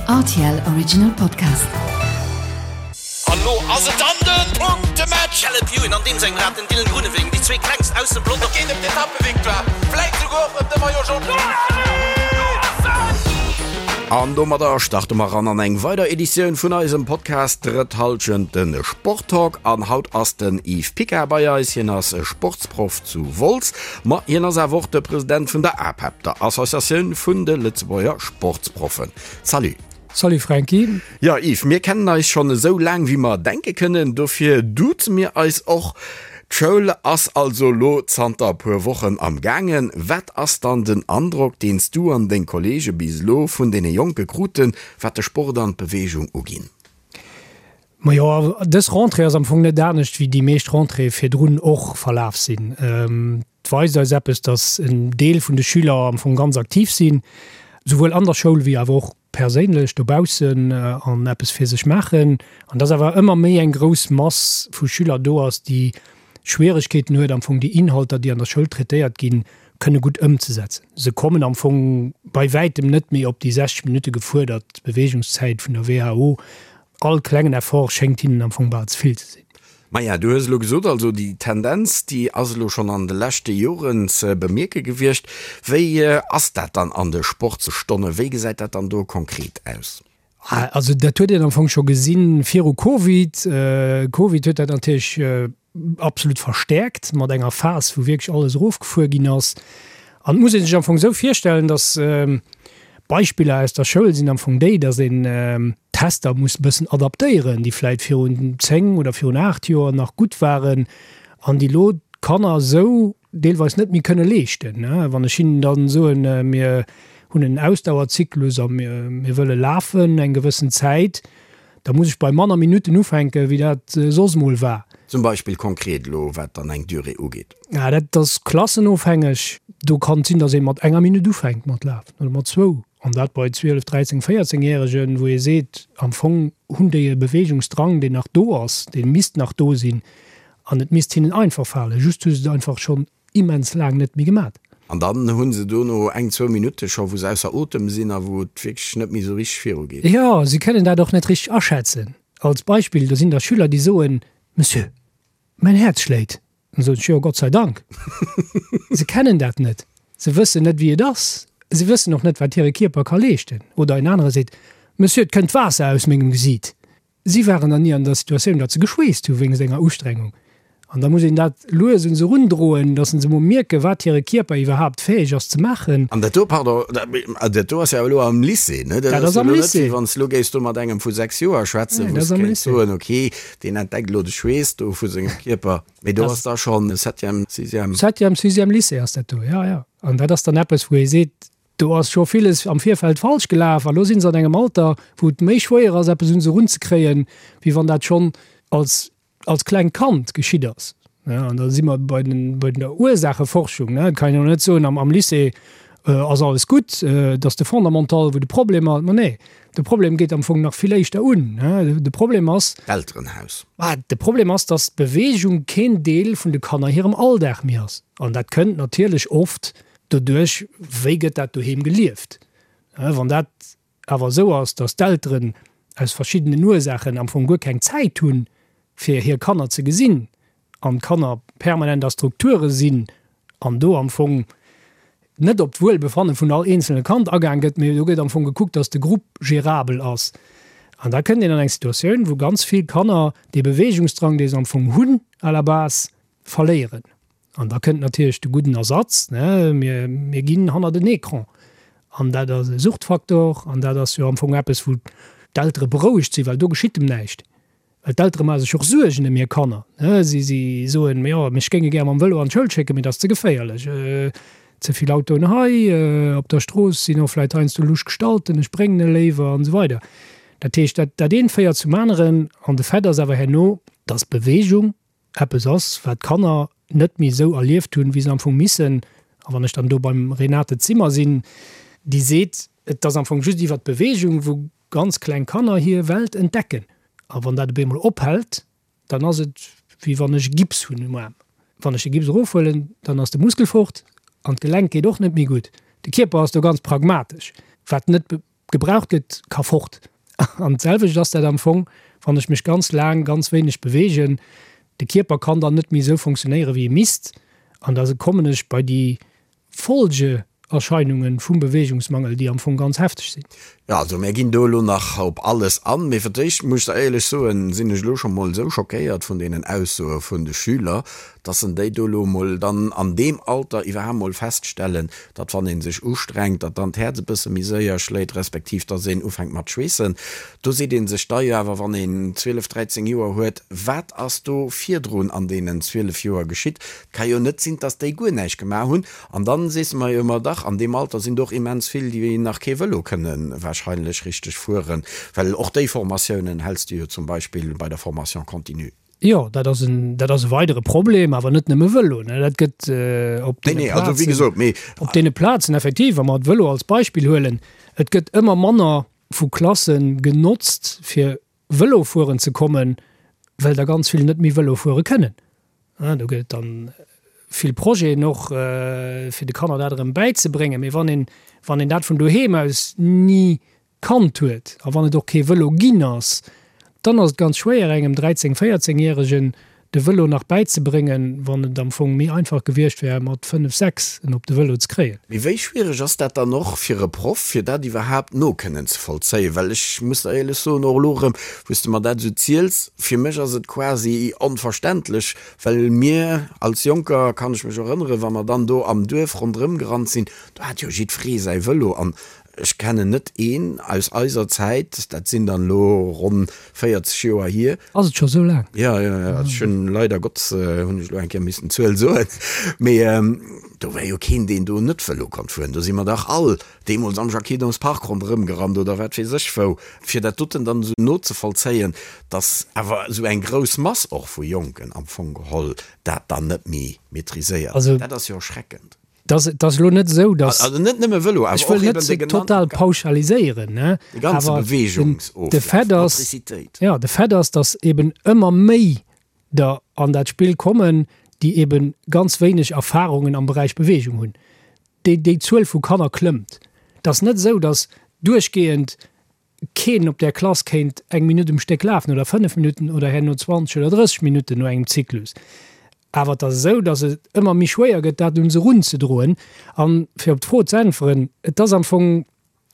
Rtl Original Podcast. An lo ass et dann den Punktematch! Caleb Ewan an deem sengem Rad den Dylan Groenewegen, déi zwee klengst aus dem Pelotong. Et geet ëm d'Etappevictoire, vläit souguer och ëm de Maillot Jaune. An domadder starte mer ran an eng weider Editioun vun eisem Podcast Drëtt Hallschent, de Sporttalk. An haut ass den Yves Picard bei eis. Hien ass Sportsproff zu Wolz, ma hien ass awer och de President vun der APEP, der Associatioun vun de Lëtzebuerger Sportsproffen. Salut! Salut Franky! Jo Yves, mir kennen eis schonn esou laang wéi mer denke kënnen, dofir duze mir eis och. D'Schoul ass also lo zanter e puer Wochen am gaangen. Wat ass dann den Androck, deen s du an deng Kollege bis elo vun deene Jonke kruten, wat de Sport an d'Beweegung uginn? Majo, dës Rentrée ass am Fong net anescht wéi déi meescht Rentréeë virdrun och verlaf sinn. Et weist eis eppes, datt en Deel vun de Schüler am Fong ganz aktiv sinn, souwuel an der Schoul wéi awer och perséinlech dobaussen an eppes fir sech maachen. An datt awer ëmmer méi eng grouss Mass vu Schüler do ass, déi Schwieregkeeten huet, am Fong déi Inhalter, déi an der Schoul traitéiert ginn, kënne gutt ëmzesetzen. Se kommen am Fong bei wäitem net méi op déi 60 Minutte gefuerdert Beweegungszäit vun der WHO. All klengen Effort schéngt hinnen am Fong bal ze vill ze sinn. Maja, du hues elo gesot, also déi Tendenz, déi ass elo schonn an de leschte Joren ze bemierke gewiescht. Wéi ass dat dann an de Sportsstonnen? Wéi gesäit dat dann do konkret aus? Also dat huet een am Fong scho gesinn viru Covid. Covid huet dat natierlech absolut verstäerkt mat enger Phas, wou wierklech alles erofgefuer ginn ass. An et muss ee sech am Fong esou virstellen, datt Beispiller aus der Schoul sinn am Fong déi, datt een Tester muss e bëssen adaptéieren, déi vläit virun 10 oder virun 8 Joer nach gutt waren an déi elo d'Kanner esou deelweis net méi kënne leeschten. Wann ech hinnen dann soen, mir hunn en Ausdauerzyklus a mir wëlle lafen eng gewëssen Zäit, da muss ech bei manner Minutten ufänken, wéi dat soss mol war. Zum Beispill konkret elo, wat dann eng Durée ugeet. Ja, dat ass klassenofhängeg. Do kann et sinn, datt ee mat enger Minutt ufänkt mat lafen oder mat zwou. An dat bei 12, 13, 14 Järegen, wou ee seet, am Fong hunn déi e Beweegungsdrang, deen nach do ass, dee misst nach do sinn. An et misst hinnen einfach falen, just hu se et einfach schonn immens laang net méi gemat. An dann hu se dono eng, zwou Minutte scho wou se ausser Otem sinn a wou et wierklech net méi esou richteg viru geet. Jo, si kënnen dat och net richteg aschätzen. Als Beispill, do sinn da Schüler, déi soen, Monsieur, mäin Häerz schléit. Dann soen ech, Jo, Gott sei Dank. Se kennen dat net. Se wëssen net, wéi et ass. Se wëssen och net, wat hire Kierper ka leeschten. Oder en anere seet, Monsieur, et kënnt Waasser aus mengem Gesiit. Si waren dann ni an der Situatioun, datt se geschweesst hu wéinst enger Ustrengung. An da muss een dat lues un se erundroen, datt se emol mierken, wat hire Kierper iwwerhaapt fäeg ass ze maachen. An dat do, pardon, dat do ass jo elo am Lycée, ne? Dat ass am Lycée. Wéi wann s de elo géifs do mat engem vu 6 Joer schwätzen, wou s de kéints soen, okay, deen entdeckt elo de Schweess do vu sengem Kierper. Mee do ass da schonn Septième, Sixième. Septième, Sixième Lycée ass dat do, jo, jo. An dat ass dann eppes, wou ee seet, Do ass scho villes am Virfeld falsch gelaf a lo si se an engem Alter, wou et méi schwéier ass, eppes un se erunzekréien, wéi wann dat schonn als, als klengt Kand geschitt ass. An da si mer bei den, bei der Ursaacheforschung. Et kann een och net soen, am, am Lycée ass alles gutt, et ass de Fondamental, wou de Problem ass. Ma nee, de Problem geet am Fong nach vill éischter un. De Problem ass. D'Elterenhaus. De Problem ass, dass d'Beweegung keen Deel vun de Kanner hirem Alldag méi ass. An dat kënnt natierlech oft Doduerch, wéi gëtt dat doheem gelieft? Wann dat awer esou ass, datt d'Elteren aus verschiddenen Ursaachen am Fong guer keng Zäit hunn, fir hir Kanner ze gesinn, an d'Kanner permanent a Strukture sinn an do am Fong net op d'Wuelbefanne vun all eenzelne Kand agaang gëtt, mee do gëtt am Fong gekuckt, datt de Grupp gérabel ass. An da kënnt een an eng Situatioun, wou ganz vill Kanner dee Beweegungsdrang, dee se am Fong hunn à la base, verléieren. An da kënnt natierlech de gudden Ersatz, ne, mir, mir ginn hannert en Ecran. An dat ass e Suchtfaktor an dat ass jo am Fong eppes, wou d'Eltere berouegt sinn, well do geschitt em näischt. Well d'Eltere maache sech och Suergen ëm hir Kanner, ne. Si, si soen, jo, mech géinge gär mam Vëlo an d'Schoul schécken, mee dat ass ze geféierlech, ze vill Autoen hei op der Strooss sinn och vläicht heiansdo lusch Gestalten, ech bréngen e léiwer an esou weider. Dat heescht, dat, dat eent féiert zum aneren an de Fait ass awer herno, dass Beweegung eppes ass, wat d'Kanner net méi esou erlieft hunn, wéi se am Fong missen. A wann ech dann do beim Renate Zimmer sinn, déi seet, et ass am Fong just iwwert d'Beweegung, wou ganz kleng Kanner hir Welt entdecken. A wann dat op eemol ophält, dann ass et, wéi wann ech e Gips hunn um Aarm. Wann ech de Gips erofhuelen, dann ass de Muskel fort an d'Gelenk geet och net méi gutt. De Kierper ass do ganz pragmatesch, wat net. gebraucht gëtt, ka fort. An d'selwecht ass dat am Fong, wann ech mech ganz laang ganz wéineg beweegen. De Kierper kann dann net méi esou funktionéieren, wéi e misst. An da kommen ech bei déi Folgeerscheinunge vum Beweegungsmangel, déi am Fong ganz hefteg sinn. Jo, also mär ginn do elo nach op alles an. Mee fir d'éischt muss ech der éierlech soen, sinn ech elo scho mol esou schockéiert vun deenen Aussoe vun de Schüler, dass en déi do elo mol dann an deem Alter iwwerhaapt mol feststellen, datt wann ee sech ustrengt, datt dann d'Häerz e bësse méi séier schléit, respektiv datt een ufänkt mat schweessen. Do seet ee sech da jo awer, wann een 12, 13 Joer huet, wat ass do virdrun an deenen 12 Joer geschitt? Et ka jo net sinn, datt déi guer näischt gemaach hunn. An dann sees de mer jo ëmmer, dach, an deem Alter sinn do och immens vill, déi nach kee Vëlo kënne wahrscheinlech richteg fueren, well och déi Formatiounen häls de jo zum Beispill bei der Formation continue. Jo, dat ass en, dat ass e weidere Problem, awer net nëmme Vëlo, ne. Dat gëtt op deene Plazen, op deene Plazen effektiv, wa mer de Vëlo als Beispill huelen, et gëtt ëmmer manner vu Klasse genotzt, fir Vëlo fueren ze kommen, well der ganz vill net méi Vëlo fuere kënnen. Do gëtt et dann vill Projeten och, fir de Kanner dat erëm bäizebréngen. Mee wann een, wann een dat vun doheem aus ni kannt huet a wann et och kee Vëlo ginn ass, dann ass et ganz schwéier engem 13, 14 Järegen de Vëlo nach bäizebréngen, wann et am Fong méi einfach gewiescht wär mat 5, 6 en op de Vëlo ze kréien. Mee wéi schwiereg ass dat dann och fir e Proff, fir dat iwwerhaapt no kënnen ze vollzéien? Well ech muss der éierlech soen, och elo erëm, wou s de mer dat esou ziels, fir mech ass et quasi onverständlech, well mir als Jonker, kann ech mech erënneren, wa mer dann do am Duerf ronderëm gerannt sinn, do hat jo jiddweree säi Vëlo an Ech kennen net een aus eiser Zäit, dat sinn dann elo ronn 40 Joer hier. Ass et scho sou laang? Jo, jo, jo, ech hunn leider Gottes hunn ech elo eng Kéier missen d'Zuel soen, mee do war jo keen, deen do net Vëlo konnt fueren. Do si mer dach all deemools am Jacques-Hidons Park ronderëm gerannt oder wat weess ech wou. Fir dat doten dann esou nozevollzéien, dass awer esou eng grouss Mass och vu Jonken am Fong geholl dat dann net méi maîtriséiert, dat ass jo erschreckend. Dat ass, dat ass elo net esou, datt. Also net nëmme Vëlo, awer och eben de total pauschaliséieren, ne? De ganze Beweegungsoflaf, de Fait ass, Motricitéit. Jo, de Fait ass, datt eben ëmmer méi der an dat Spill kommen, déi eben ganz wéineg Erfahrungen am Beräich Beweegung hunn. Déi, déi Zuel vu Kanner klëmmt. Et ass net esou, datt duerchgehend keen op där Klass kéint eng Minutt um Stéck lafen oder 5 Minutten oder herno 20 oder 30 Minutten no engem Zyklus. Awer et ass esou, datt et ëmmer méi schwéier gëtt, dat un se erunzedroen. An fir op d'Fro ze äntweren, et ass am Fong,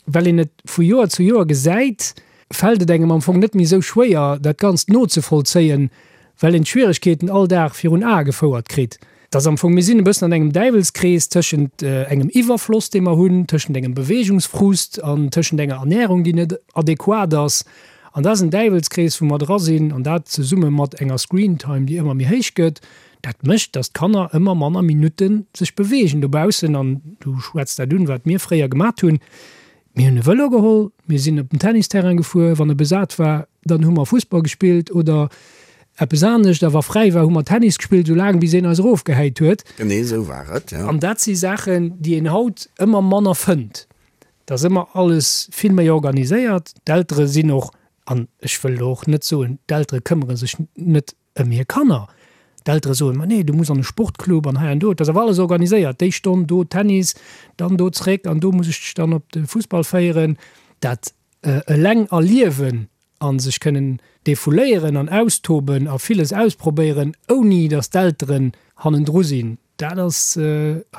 well een et vu Joer zu Joer gesäit, fält et engem am Fong net méi esou schwéier, dat Ganzt nozevollzéien, well een d'Schwieregkeeten all Dag virun Ae gefouert kritt. Et ass am Fong, mir sinn e bëssen an engem Däiwelskrees tëschent engem Iwwerfloss, dee mer hunn, tëschent engem Beweegungsfrust an tëschent enger Ernärung, déi net adequat ass. An dat ass en Däiwelskrees, wou mer dra sinn, an dat zesumme mat enger Screentime, déi ëmmer méi héich gëtt, dat mécht, datt d'Kanner ëmmer manner Minutte sech beweegen dobaussen. An du schwätz dat un, wat mir fréier gemat hunn. Mir hunn e Vëlo geholl, mir sinn op den Tennisterrain gefuer, wann e besat war, dann hu mer Fussball gespillt oder eppes anescht, a wa fräi war, hu mer Tennis gespillt, esou laang bis een eis erofgehäit huet. Genee esou war et, jo. An dat si Saachen, déi een haut ëmmer manner fënnt. Et ass ëmmer alles vill méi organiséiert. D'Eltere sinn och, an ech wëll elo och net soen, d'Eltere këmmere sech net ëm hir Kanner. D'Eltere soen, ma nee, du muss an e Sportclub an hei an do. Et ass awer alles organiséiert, déi Stonn do Tennis, dann do zréck an do muss ech dech dann op de Fussball féieren. Dat eleng erliewen a sech kënnen defouléieren an austoben a villes ausprobéieren, ouni datt d'Elteren hannendru sinn, dat ass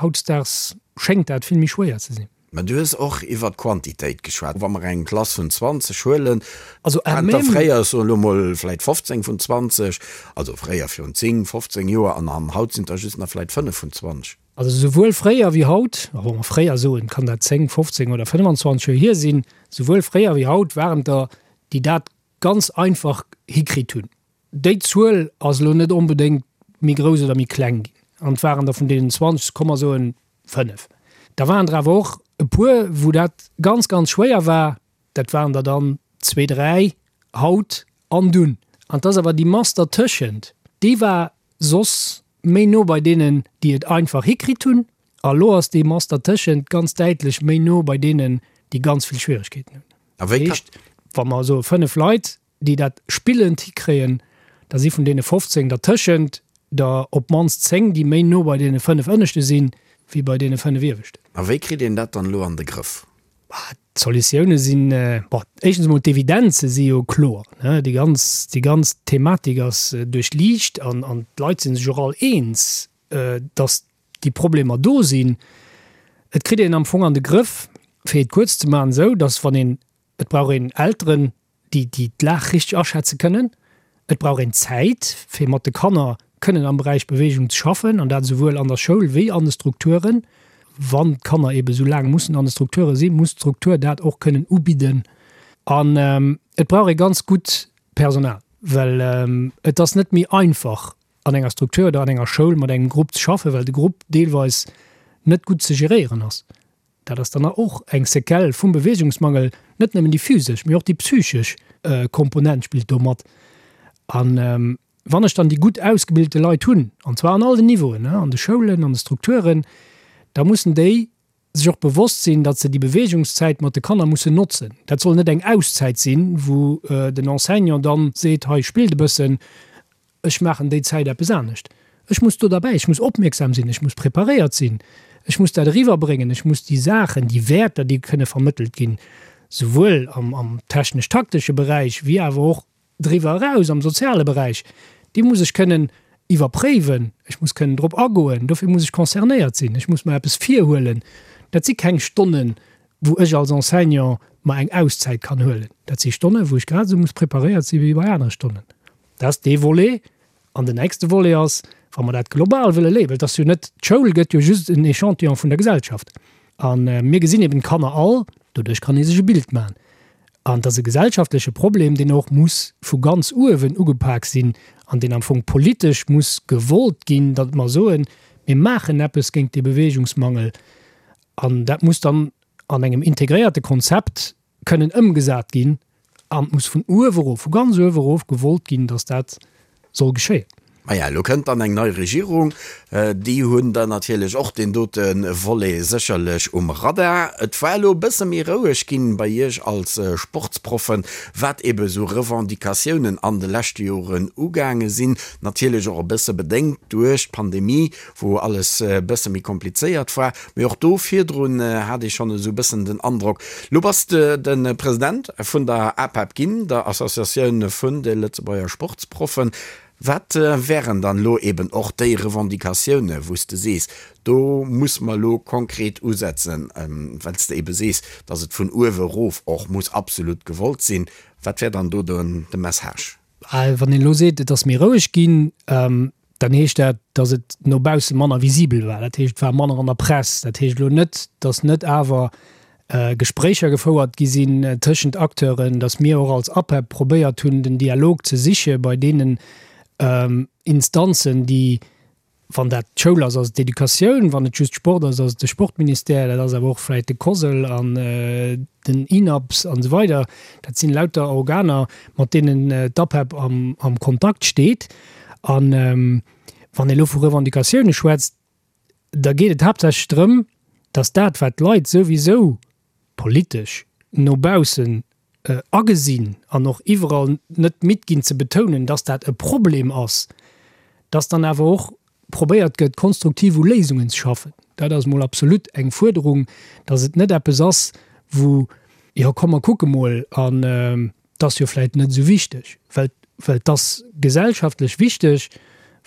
hautdesdaags, schéngt dat vill méi schwéier ze sinn. Mä du hues och iwwert d'Quantitéit geschwat. Wa mer eng Klass vun 20 huelen, also waren der fréier, ech soen elo mol, vläicht 15 vun 20, also fréier virun 10, 15 Joer, an an haut sinn der just nach vläicht 5 vun 20. Also souwuel fréier wéi haut, a wa mer fréier soen, kann dat 10, 15 oder 25 Joer hier sinn, souwuel fréier wéi haut waren der, déi dat ganz einfach hikritt hunn. Déi Zuel ass elo net onbedéngt méi grouss oder méi kleng ginn. An et waren der vun deenen 20, komm mer soen 5. Da waren der awer och e puer, wou dat ganz, ganz schwéier war. Dat waren der dann zwee, dräi haut an dunn. An et ass awer déi Mass dertëschent, déi war soss méi no bei deenen, déi et einfach hikritt hunn. A lo ass déi Mass dertëschent ganz däitlech méi no bei deenen, déi ganz vill Schwieregkeeten hunn. A wéi kann. Dat heescht, wa mer soe 5 Leit, déi dat spillend hikréien, da si vun deene 15 dertëschent der op d'mannst 10, déi méi no bei deene 5 ënneschte sinn, wéi bei deene 5 ieweschten. A wéi kritt een dat dann elo an de Grëff? D'Solutioune sinn, bon, éischtens emol d'Evidenze si jo kloer, ne, déi ganz, déi ganz Thematik ass duerchliicht an, an d'Leit si sech och all eens, datt déi Problemer do sinn. Et kritt een am Fong an de Grëff, fir et kuerz ze maachen, esou, datt wann een, et brauch een Elteren, déi déi d'Lag richteg aschätze kënnen. Et brauch een Zäit, fir mat de Kanner kënnen am Beräich Beweegung ze schaffen, an dat esouwuel an der Schoul wéi an de Strukturen. Wann d'Kanner eebe sou laang mussen an de Strukture sinn, muss d'Struktur dat och kënnen ubidden. An et brauch ee ganz gutt Personal, well et ass net méi einfach, an enger Struktur oder an enger Schoul mat engem Grupp ze schaffen, well de Grupp deelweis net gutt ze geréieren ass. Dat ass dann och eng Séquelle vum Beweegungsmangel, net nëmmen déi physesch, mee och déi psychesch Komponent spillt do mat. A wann ech dann déi gutt ausgebilte Leit hunn, an zwar an all den Niveauen, an de Schoulen, an de Strukturen, da mussen déi sech och bewosst sinn, datt se déi Beweegungszäit mat de Kanner mussen notzen. Dat soll net eng Auszäit sinn, wou den Enseignant dann seet, hei spillt e bëssen, Ech maachen déi Zäit eppes anescht. Ech muss do derbäi, ech muss opmierksam sinn, ech muss preparéiert sinn, ech muss dat eriwwerbréngen, ech muss déi Saachen, déi Wäerter, déi kënne vermëttelt ginn, souwuel am, am technesch-taktesche Beräich wéi awer och driwwer eraus am soziale Beräich, déi muss ech kënnen iwwerpréiwen, ech muss kënnen drop agoen. Dofir muss ech concernéiert sinn, ech muss mer eppes virhuelen. Dat si keng Stonnen, wou ech als Enseignant mer eng Auszäit kann huelen. Dat si Stonnen, wou ech grad esou muss preparéiert si wéi bei anere Stonnen. Dat ass dee Volet. An den nächste Volet ass, wa mer dat global wëlle léiwen, well et ass jo net, d'Schoul gëtt jo just en Échantillon vun der Gesellschaft. A mir gesinn eben d'Kanner all, doduerch kann ee sech e Bild maachen. An et ass e gesellschaftleche Problem, deen och muss vu ganz uewen ugepak sinn an deen am Fong politesch muss gewollt ginn, datt mer soen, mir maachen eppes géint dee Beweegungsmangel. An dat muss dann an engem integréierte Konzept kënnen ëmgesat ginn an et muss vun uewe erof, vu ganz uewe erof gewollt ginn, datt dat soll geschéien. Maja, elo kënnt dann eng nei Regierung. Déi hunn dann natierlech och deen dote Volet sécherlech um Radar. Et war elo e bësse méi roueg ginn bei Iech als Sportsproffen, wat ebe sou Revendicatiounen an de leschte Joren ugaange sinn. Natierlech och e bësse bedéngt duerch d'Pandemie, wou alles e bësse méi komplizéiert war. Mee och do virdrun hat ee schonn esou e bëssen den Androck, lo bass de de President vun der APEP ginn, der Associatioun vun de Lëtzebuerger Sportsproffen. Wat wären dann elo eben och déi Revendicatioune wou s de sees, do muss mer elo konkret usetzen, well s de ebe sees, datt et vun uewe erof och muss absolut gewollt sinn. Wat wär dann do de Message? Wann een elo seet, et ass méi roueg ginn, dann heescht dat, datt et no bausse manner visibel war. Dat heescht, et war manner an der Press. Dat heescht elo net, datt net awer Gespréicher gefouert gi sinn tëschent Acteuren, datt mir och als APEP probéiert hunn, den Dialog ze siche bei deenen Instanzen, déi Wann dat d'Schoul ass, ass et d'Educatioun, wann et just Sport ass, ass et de Sportministère, dat ass awer och vläicht de COSL an den INAPS an esou weider. Dat sinn lauter Organer, mat deenen d'APEP am Kontakt steet. A wann ee elo vu Revendicatioune schwätzt, da geet et haaptsächlech drëm, datt dat, wat d'Leit souwisou politesch no baussen agesinn an och iwwerall net midd ginn ze betounen, dass dat e Problem ass, dass dann awer och probéiert gëtt, konstruktiv u Léisungen ze schaffen. Dat ass mol absolut eng Fuerderung, dass et net eppes ass, wou, jo komm mer kucke mol an et ass jo vläicht net esou wichteg, well well et ass gesellschaftlech wichteg,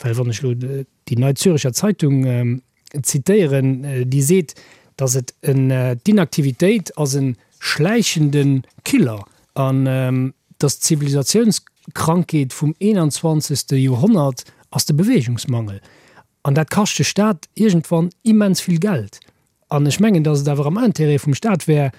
well wann ech elo déi Neue Züricher Zeitung zitéieren, déi seet, datt et en, d'Inaktivitéit ass e schläichende Killer an datt d'Zivilisatiounskrankheet vum 21. Joerhonnert ass de Beweegungsmangel. An dat kascht de Staat iergendwann immens vill Geld. An ech mengen, datt et awer am Intérêt vum Staat wär,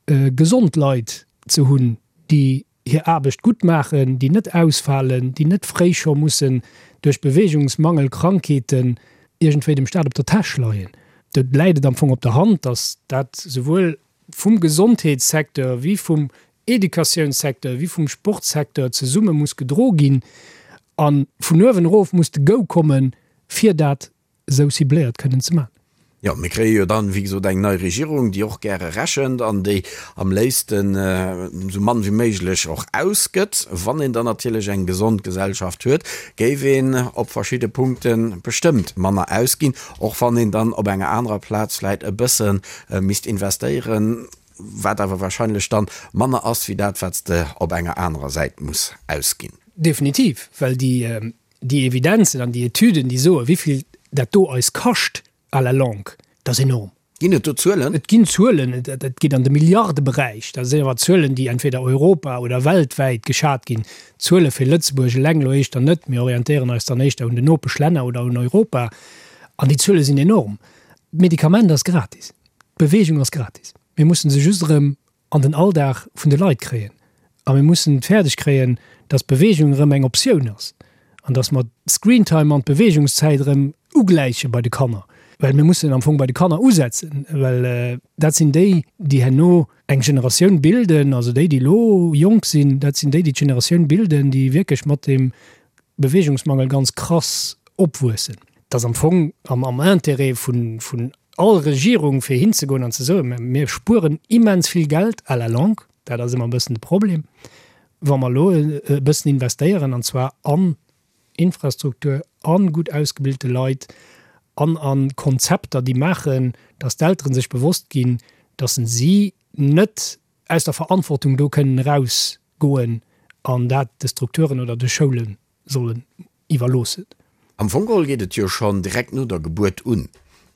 gesond Leit ze hunn, déi hir Aarbecht gutt maachen, déi net ausfalen, déi net fréi scho mussen duerch Beweegungsmangel, Krankheeten iergendwéi dem Staat op der Täsch leien. Do läit et am Fong op der Hand, datt dat souwuel vum Gesondheetssecteur wéi vum Educatiounssecteur wéi vum Sportsecteur zesumme muss gedro ginn a vun uewen erof muss de Go kommen, fir dat esou cibléiert kënnen ze maachen. Jo, mir kréie jo dann, wéi gesot, eng nei Regierung, déi och gäre rechent an déi am léifsten esou mann wéi méiglech och ausgëtt. Wann een dann natierlech eng gesond Gesellschaft huet, géif een op verschidde Punkte bestëmmt manner ausginn, och wann een dann op enger anerer Plaz vläicht e bësse misst investéieren. wat awer wahrscheinlech dann manner ass wéi dat, wat s de op enger anerer Säit muss ausginn. Definitiv, well déi déi Evidenzen an déi Etüden, déi soen, wéi vill dat do eis kascht à la longue, dat ass enorm. Ginn et do Zuelen? Et ginn Zuelen, et geet an de Milliardeberäich. Dat sinn awer Zuelen, déi entweder Europa oder weltwäit geschat ginn. Zuele fir Lëtzebuerg eleng elo éischter net. Mir orientéieren eis dann éischter un den Nopeschlänner oder un Europa. An déi Zuele sinn enorm. D'Medikament ass gratis, d'Beweegung ass gratis. Mir mussen se just erëm an den Alldag vun de Leit kréien. A mir mussen et fäerdeg kréien, dass Beweegung erëm eng Optioun ass an dass mer d'Screentime an d'Beweegungszäit erëm ugläiche bei de Kanner. Well mir mussen am Fong bei de Kanner usetzen, well dat sinn déi, déi herno eng Generatioun bilden, also déi, déi elo jonk sinn, dat sinn déi, déi d'Generatioun bilden, déi wierklech mat deem Beweegungsmangel ganz krass opwuessen. Et ass am Fong am Intérêt vun all Regierung, fir hinzegoen an ze soen, Mir spueren immens vill Geld à la longue, dat ass ëmmer e bëssen de Problem, wa mer elo e bëssen investéieren, an zwar an Infrastruktur, a gutt ausgebilte Leit an a Konzepter, déi maachen, datt d'Eltere sech bewosst ginn, datt si net aus der Verantwortung do kënnen erausgoen an dat de Strukturen oder de Schoule sollen iwwerloossen. Am Fong geholl geet et jo schonn direkt no der Gebuert un,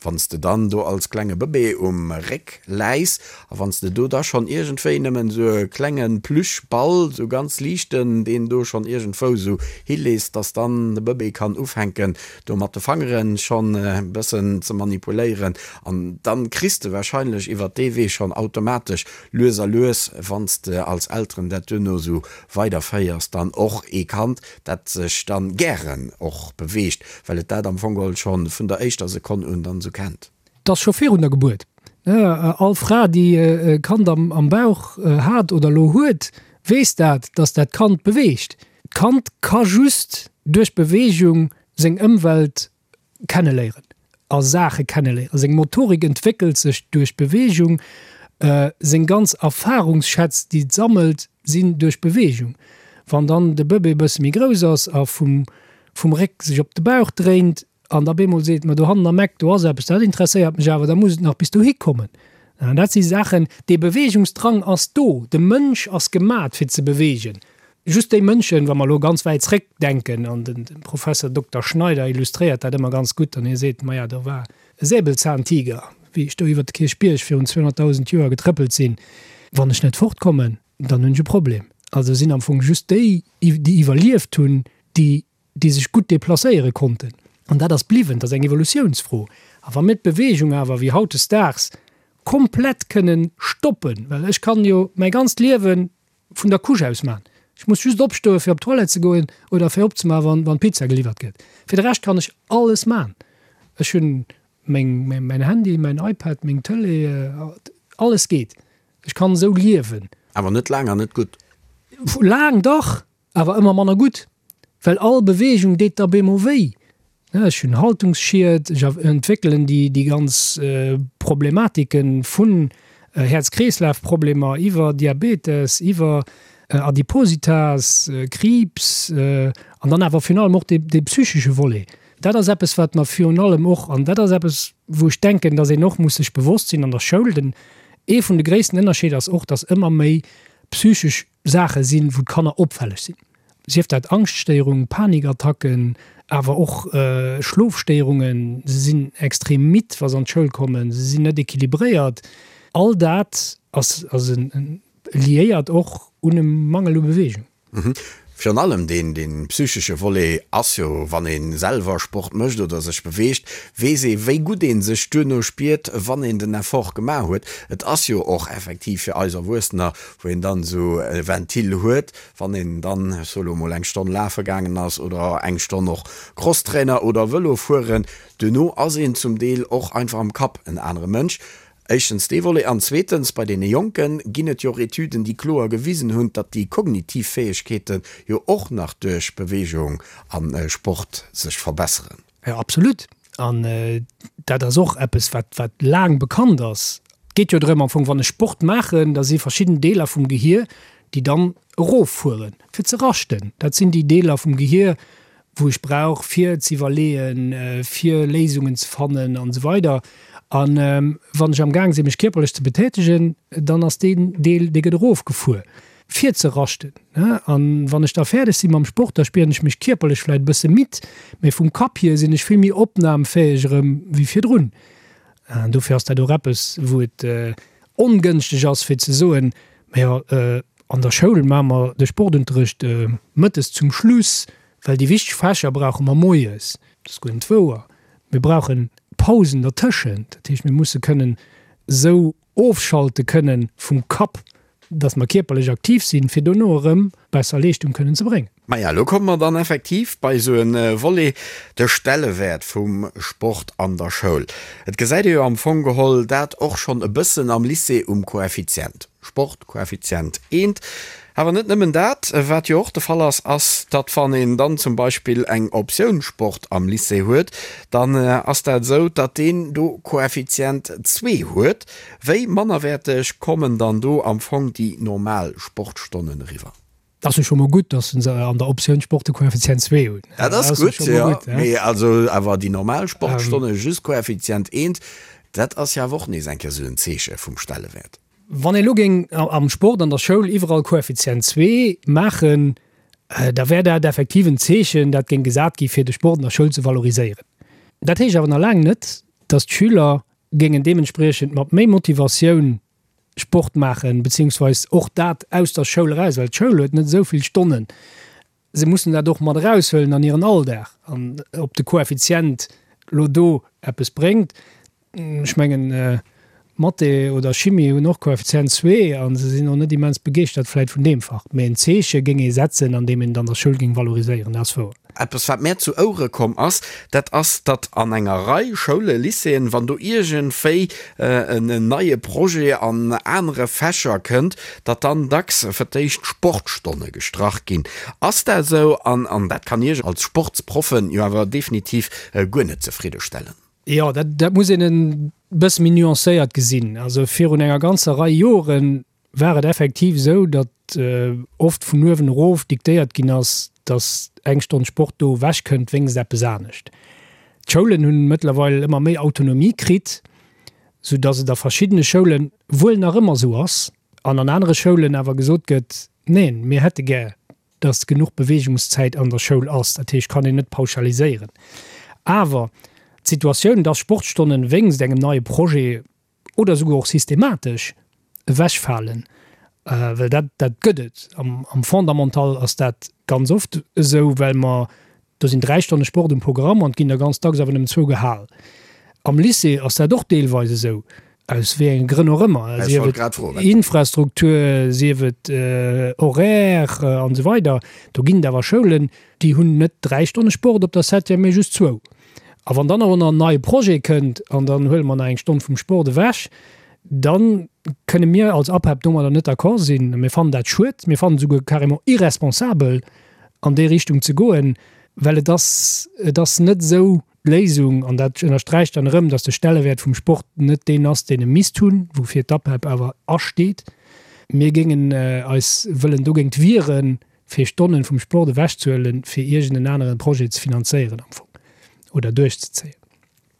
wann s de dann do als klenge Bëbee um Réck läis a wann s de do da schonn iergendwéi nëmmen esou e klenge Plüschball, esou ganz liichten, deen do schonn iergendwou esou hilees, dass dann de Bëbee kann ufänken do mat de Fangere schonn e bëssen ze manipuléieren an dann kriss de wahrscheinlech iwwert dee Wee schonn automatesch lues a lues, wann s de als Elteren dat duerno esou weiderféiers, dann och ee Kand, dat sech dann gären och beweegt, well et dat am Fong geholl schonn vun der éischter Sekonn un dann esou kennt. 't ass scho virun der Gebuert. All Fra, déi e Kand am Bauch hat oder elo huet, weess dat, dass dat Kand beweegt. D'Kand ka just duerch Beweegung seng Ëmwelt kenneléieren a Saache kenneléieren. Seng Motorik entwéckelt sech duerch Beweegung, seng ganz Erfarungsschätz, déi et sammelt, sinn duerch Beweegung. Wann dann de Bëbee e bësse méi grouss ass a vum Réck sech op de Bauch dréint an da bemol seet, ma dohannen am Eck, do ass eppes, dat interesséiert mech awer, da muss et nach bis dohi kommen. An dat si Saachen, dee Beweegungsdrang ass do, de Mënsch ass gemat fir ze beweegen. Just déi Mënschen, wa mer elo ganz wäit zréck denken, an de Professor Dokter Schneider illustréiert dat ëmmer ganz gutt, an hie seet, maja, do war e Säbelzahntiger, wéi ech do iwwert de Kierchbierg virun 200.000 Joer getrëppelt sinn, wann ech net fortkommen, dann hunn ech e Problem. Also sinn am Fong just déi, déi iwwerlieft hunn, déi déi sech gutt deplacéiere konnten. An dat ass bliwwen, dat ass eng Evolutiounsfro. A wa mir d'Beweegung awer wéi hautdesdaags komplett kënnen stoppen, well ech kann jo mäi ganzt Liewe vun der Couche aus man, ech muss just opstoe fir op d'Toilette ze goen oder fir opzemaachen, wann d'Pizza geliwwert gëtt, fir de Rescht kann ech alles man. Ech hunn meng, mäin Handy, mäin iPad, meng Tëlee, alles geet. Ech kann esou liewen. Awer net laang an net gutt. Laang dach! Awer ëmmer manner gutt, well all Beweegung deet da bemol wéi. Ech hunn Haltungsschied, ech entwéckelen déi ganz Problematike vun Häerz-Kreeslaf-Problemer iwwer Diabetes, iwwer Adipositas, Kriibs an dann awer virun allem och dee psychesche Volet. Dat ass eppes, wat mer virun allem och, an dat ass eppes, wou ech denken, datt een och muss sech bewosst sinn an der Schoul, den, ee vun de gréissten Ënnerscheeder ass och, datt ëmmer méi psychesch Saache sinn, wou d'Kanner opfälleg sinn, sief dat Angschtstéierung, Panikattacken, awer och Schlofstéierungen, se sinn extrem midd, wa se an d'Schoul kommen, se sinn net equilibréiert. All dat ass liéiert och un e Mangel u Beweegung. Virun allem deen psychesche Volet ass jo, wann ee selwer Sport mécht oder sech beweegt, weess ee wéi gutt ee sech duerno spiert, wann een den Effort gemaach huet. Et ass jo och effektiv fir eis Erwuessener wou een dann esou e Ventil huet, wann een dann, ech soe lo mol, eng Stonn lafe gaangen ass oder eng Stonn och Crosstrainer oder Vëlo fueren, duerno ass een zum Deel och einfach am Kapp en anere Mënsch. Éischtens dee Volet an zweetens, bei deene Jonke ginn et jo och Etüden, déi kloer gewisen hunn, datt déi kognitiv Fäegkeete jo och nach duerch Beweegung a Sport sech verbesseren. Jo, absolut. An dat ass och eppes, wat, wat laang bekannt ass. Et geet jo drëm am Fong, wann ech Sport maachen, da si verschidden Deeler vum Gehier, déi dann eroffueren, fir ze raschten. Dat sinn déi Deeler vum Gehier, wou ech brauch fir z'iwwerleeën, fir Léisungen ze fannen an esou weider. An wann ech am Gaang sinn mech kierperlech ze betätegen, dann ass deen Deel, dee gëtt erofgefuer fir ze raschten. An wann ech da fäerdeg si mam Sport, da spieren ech mech kierperlech vläit e bësse midd, mee vum Kapp hier sinn ech vill méi opnamfäeg erëm wéi virdrun. An dofir ass dat och eppes, wou et ongënschteg ass fir ze soen, Majo, an der Schoul maache mer de Sportunterrecht mëttes zum Schluss, well déi wichteg Fächer brauche mer moies. Dat ass guer net wouer. Mir brauche Pausen dertëschent. Dat heescht, mir musse kënnen esou ofschalte kënnen vum Kapp, dass mer kierperlech aktiv sinn, fir dono erëm besser Leeschtung kënnen ze bréngen. Maja, elo komme mer dann effektiv bei esou e Volet, de Stellewäert vum Sport an der Schoul. Et gesäit ee jo am Fong geholl dat och schonn e bëssen am Lycée um Koeffizient, Sport, Koeffizient eent. Awer net nëmmen dat, wat jo och de Fall ass, ass, datt wann een dann zum Beispill eng Optioun Sport am Lycée huet, dann ass dat esou, datt deen do Koeffizient zwee huet. Wéi mannerwäerteg kommen dann do am Fong déi normal Sportstonnen eriwwer? Dat ass jo scho mol gutt, datt se an der Optioun Sport de Koeffizient zwee hunn. Dat ass gutt, jo. Mee also awer déi normal Sportstonne just Koeffizient eent, dat ass jo awer och nees eng Kéier esou en Zeeche vum Stellewäert. Wann ee elo géing am Sport an der Schoul iwwerall Koeffizient zwee maachen, da wär dat effektiv en Zeechen, dat géing gesat gi fir de Sport an der Schoul ze valoriséieren. Dat heescht awer nach laang net, datt d'Schüler géingen deementspriechend mat méi Motivatioun Sport maachen, beziehungsweis och dat aus der Schoul eraus, well d'Schoul huet net esou vill Stonnen. Se mussen dat och mat eraushuelen an hiren Alldag. An ob de Koeffizient elo do eppes bréngt, ech mengen, Mathé oder Chimie hunn och Koeffizient zwee a se sinn och net immens begeeschtert vläit vun deem Fach. Mee en Zeeche géing ee setzen, andeem een et an der Schoul géing valoriséieren, dat ass wouer. Eppes wat mär zu Ouere komm ass, dat ass, datt an enger Rei Schoule, Lycéeën, wann do iergendwéi en neie Projet an anere Fächer kënnt, datt dann dacks fir d'éischt d'Sportstonne gestrach ginn. Ass dat esou? An an dat kann Iech als Sportsproffen jo awer definitiv guer net zefriddestellen. Jo, dat dat muss een e bësse méi nuancéiert gesinn. Also virun enger ganzer Rei Joren war et effektiv esou, datt oft vun uewen erof diktéiert ginn ass, datt eng Stonn Sport do ewech kënnt wéinst eppes anescht. D'Schoulen hunn mëttlerweil ëmmer méi Autonomie kritt, sou datt et a verschiddene Schoule wuel nach ëmmer esou ass an an anere Schoulen awer gesot gëtt, Neen, mir hätte gär, datt genuch Beweegungszäit an der Schoul ass. Dat heescht, kann een net pauschaliséieren. Awer d'Situatioun, datt Sportstonnen wéinst engem neie Projet oder esouguer och systematesch ewechfalen, well dat, dat gëtt et. Am, am Fondamental ass dat ganz oft esou, well mer, do sinn 3 Stonne Sport um Programm an et ginn der ganz dacks awer nëmmen zwou gehal. Am Lycée ass dat och deelweis esou, aus wéi enge Grënn och ëmmer, sief et Infrastruktur, sief et Horaire an esou weider. Do ginn et awer Schoulen, déi hunn net 3 Stonne Sport op der Septième, mee just zwou. A wann dann och nach en neie Projet kënnt an dann huele mer nach eng Stonn vum Sport ewech, da kënne mir als APEP domadder net d'accord sinn. Mir fannen dat schued, mir fannen et esouguer carrément irresponsabel an déi Richtung ze goen, well et ass, et ass net esou d'Léisung, an dat ënnersträicht dann erëm, datt de Stellewäert vum Sport net deen ass, deen e misst hunn, woufir d'APEP awer asteet. Mir géingen eis wëllen dogéint wieren, fir Stonnen vum Sport ewechzehuelen, fir iergend en aneren Projet ze finanzéieren am Fong oder duerchzezéien.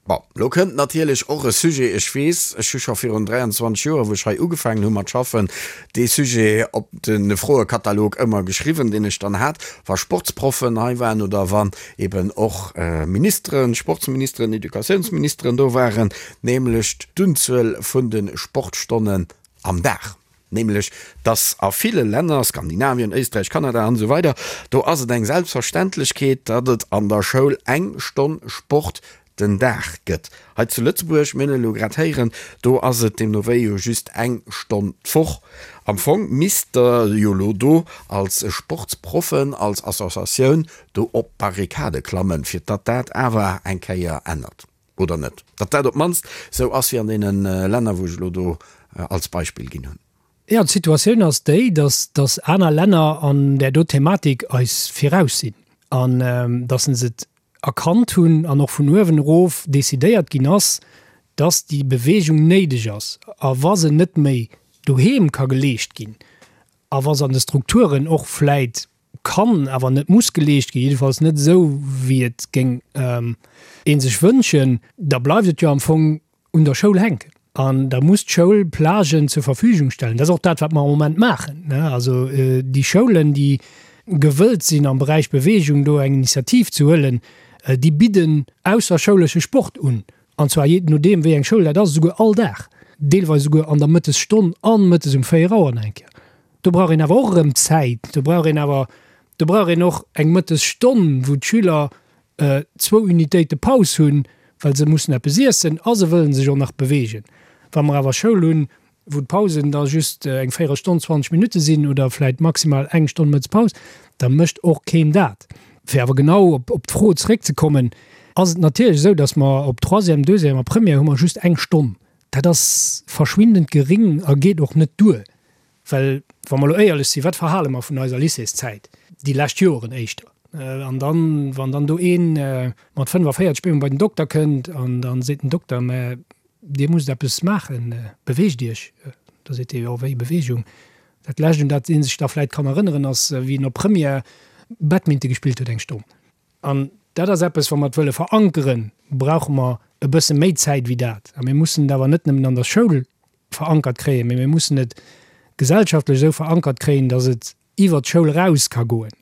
Bon, lo kënnt natierlech och e Sujet, ech weess, ech hu scho virun 23 Joer, wou ech hei ugefaangen hu mat schaffen, dee Sujet op de Froekatalog ëmmer geschriwwen, deen ech dann hat, wa Sportsproffen hei waren oder wann eben och Ministeren, Sportsministeren, Educatiounsministeren do waren, nämlech d'Unzuel vun de Sportstonnen am Dag. Nämlech, dass a ville Länner, Skandinavien, Éisträich, Kanada an esou weider, do ass et eng Selbstverständlechkeet, datt et an der Schoul eng Stonn Sport den Dag gëtt. Hei zu Lëtzebuerg, mir hunn et elo grad héieren, do ass et deemno wéi jo just eng Stonn d'Woch. Am Fong misst Der jo elo do als Sportsproffen, als Associatioun do op d'Barrikade klammen, fir datt dat awer eng Kéier ännert. Oder net? Datt dat op d'mannst esou ass wéi an deene Länner, wou ech elo do als Beispill ginn hunn. Jo, d'Situatioun ass déi, datt datt aner Länner an där do Thematik eis viraus sinn an datt se et erkannt hunn an och vun uewen erof decidéiert ginn ass, datt déi Beweegung néideg ass. A wa se net méi doheem ka geleescht ginn a wa se an de Strukturen och vläit. kann, awer net muss geleescht ginn, jiddefalls net esou, wéi et géing ee sech wënschen, da bleift et jo am Fong un der Schoul hänken. An da muss d'Schoul Plagen zur Verfügung stellen. Dat ass och dat, wat mer am Moment maachen. Also déi Schoulen, déi gewëllt sinn, am Beräich Beweegung do eng Initiativ ze huelen, déi bidden ausserschoulesche Sport un. An zwar jee nodeem, wéi eng Schoul dat ass, esouguer all Dag, deelweis esouguer an der Mëttesstonn an mëttes um 4 Auer nach eng Kéier. Do brauch een awer och erëm Zäit. Do brauch een awer, do brauch een och eng Mëttesstonn, wou d'Schüler zwou Unitéite Paus hunn, well se mussen eppes iessen a se wëllen sech och nach beweegen. Wa mer awer Schoul hunn, wou d'Pausen da just eng Véierelstonn, 20 Minutte sinn oder vläit maximal eng Stonn Mëttespaus, da mécht och keen dat. Fir awer genau op d'Fro zeréckzekommen, ass et natierlech esou, datt mer op Troisième, Deuxième a Première hu mer just eng Stonn. Dat ass verschwindend geréng a geet och net duer. Well, wa mer elo éierlech sinn, wat verhale mer vun eiser Lycéeszäit, déi lescht Joren éischter? An dann, wann dann do ee mat 45 bemol bei den Dokter kënnt an da seet den Dokter, mä Dir musst eppes maachen, beweegt Iech. Da seet dee, jo, wéi Beweegung? Dat Lescht, un dat ee sech da vläicht kann erënneren, ass, wéi en op Première Badminton gespillt huet eng Stonn. An dat ass eppes, wa mer et wëlle verankeren, brauche mer e bësse méi Zäit wéi dat. A mir mussen et awer net nëmmen an der Schoul verankert kréien, mee mir mussen et gesellschaftlech esou verankert kréien, datt et iwwert d'Schoul eraus ka goen.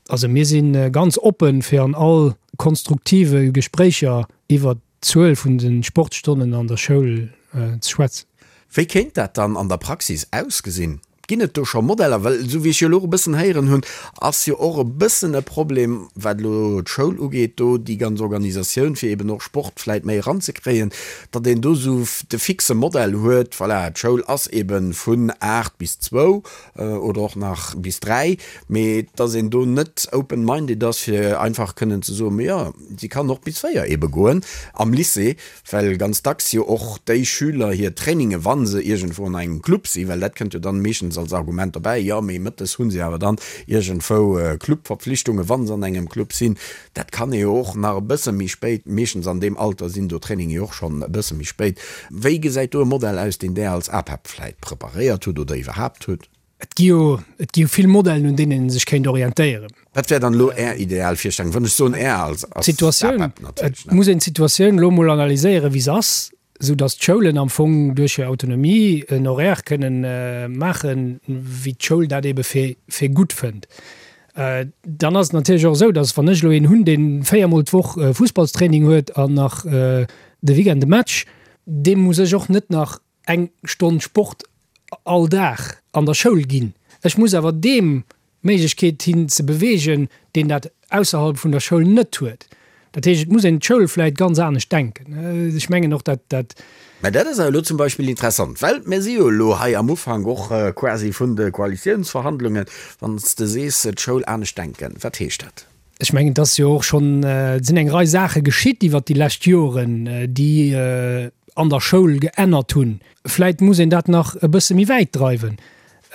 Also mir si ganz oppen, fir an all konstruktive Gespréicher iwwert d'Zuel vun de Sportstonnen an der Schoul ze schwätzen. Wéi kéint dat dann an der Praxis ausgesinn? Ginn et do scho Modeller? Well esou wéi ech jo elo och e bëssen héieren hunn, ass jo och e bëssen e Problem, wat elo d'Schoul ugeet, do déi ganz Organisatioun, fir eben och Sport vläit méi eranzekréien, datt een do esou de fixe Modell huet, voilà, d'Schoul ass ebe vun 8 bis zwou oder och nach bis 3, mee datt een do net open-minded ass, fir einfach kënnen ze soen, ma jo, si kann och bis 4 ebe goen am Lycée. Well ganz dacks jo och déi Schüler hir Traininge, wa se iergendwou an engem Club sinn, well dat kënnt jo dann meeschtens als Argument dobäi, jo mee mëttes hu se awer dann iergendwou Clubverpflichtungen, wa se an engem Club sinn. Dat kann ee jo och nach e bësse méi spéit, meeschtens an deem Alter sinn do Traininge jo och schonn e bësse méi spéit. Wéi gesäit do e Modell aus, deen Där als APEP vläit preparéiert hutt oder iwwerhaapt hutt? Et gi jo, et gi jo vill Modellen, un deenen ee sech kéint orientéieren. Wat wär dann elo Är ideal Virstellung? Wann ech soen Är als D'Situatioun, APEP natierlech, et ne? muss een d'Situatioun elo emol analyséieren, wéi se ass, esou datt d'Schoulen am Fong duerch hir Autonomie en Horaire kënnen maachen, wéi d'Schoul dat ebe fir, fir gutt fënnt. Dann ass et natierlech och esou, datt wann ech elo een hunn, dee véiermol d'Woch Fussballstraining huet an nach de Weekend e Match, deem muss ech och net nach eng Stonn Sport all Dag an der Schoul ginn. Ech muss awer deem d'Méiglechkeet hinn ze beweegen, deen dat ausserhalb vun der Schoul net huet. Dat heescht, et muss een d'Schoul vläit ganz anescht denken. Ech mengen och, dat dat. Mä dat ass awer elo zum Beispill interessant, well mir si jo elo hei am Ufank och quasi vun de Koalitiounsverhandlungen. Wann s de sees, d'Schoul anescht denken, wat heescht dat? Ech mengen, et ass jo och schonn, et sinn eng Rei Saache geschitt iwwert déi lescht Joren, déi an der Schoul geännert hunn. Vläit muss een dat nach e bësse méi wäit dreiwen.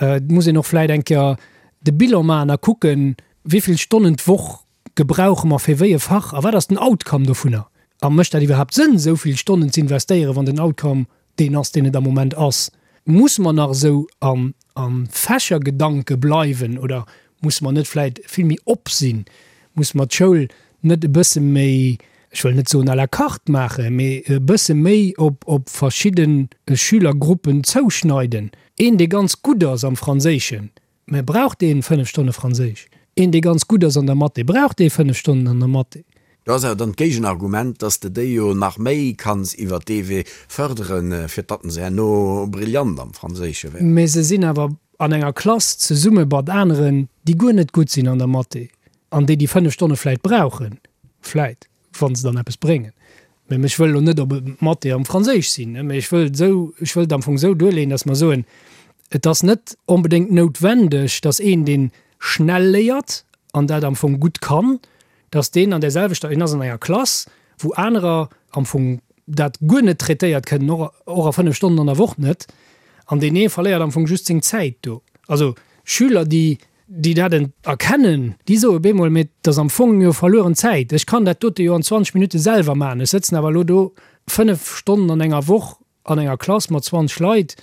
Et muss een och vläit eng Kéier de Bilan maachen a kucken, wéi vill Stonnen d'Woch gebrauche mer fir wéi e Fach a wat ass den Outcome dovunner. A mécht dat iwwerhaapt Sënn, esou vill Stonnen ze investéieren, wann den Outcome deen ass, deen et am Moment ass? Musse mer nach esou a Fächergedanke bleiwen oder musse mer net vläit vill méi op sinn? Musse mer d'Schoul net e bësse méi, ech wëll net soen à la carte maachen, mee e bësse méi op op verschidde Schülergruppen zouschneiden? Een, dee ganz gutt ass am Franséischen, Mä brauch deen 5 Stonne Franséisch? Een dee ganz gutt ass an der Mathé, brauch dee 5 Stonnen an der Mathé? Do ass awer dann d'Géigenargument, dass de déi jo nach méi kanns iwwert dee Wee fërderen, fir datt se herno brillant am Franséische wären. Mä se sinn awer an enger Klass zesumme mat aneren, déi guer net gutt sinn an der Mathé an déi déi 5 Stonne vläit brauchen, vläit. wa se dann eppes bréngen. Mä ech wëll elo net op Mathé am Franséisch sinn, mä ech wëll esou, ech wëll et am Fong esou duerleeën, datt mer soen, et ass net onbedéngt noutwendeg, datt een, dee schnell léiert an dat am Fong gutt kann, datt deen an där selwechter, en ass an enger Klass, wou anerer am Fong dat guer net traitéiert kënnen, och, och a 5 Stonnen an der Woch net, an deen ee verléiert am Fong just seng Zäit do. Also Schüler, déi déi dat erkennen, déi soe bemol, mee et ass am Fong jo verlueren Zäit, ech kann dat dote jo an 20 Minutte selwer maachen, ech sëtzen awer elo do 5 Stonnen an enger Woch an enger Klass mat 20 Leit.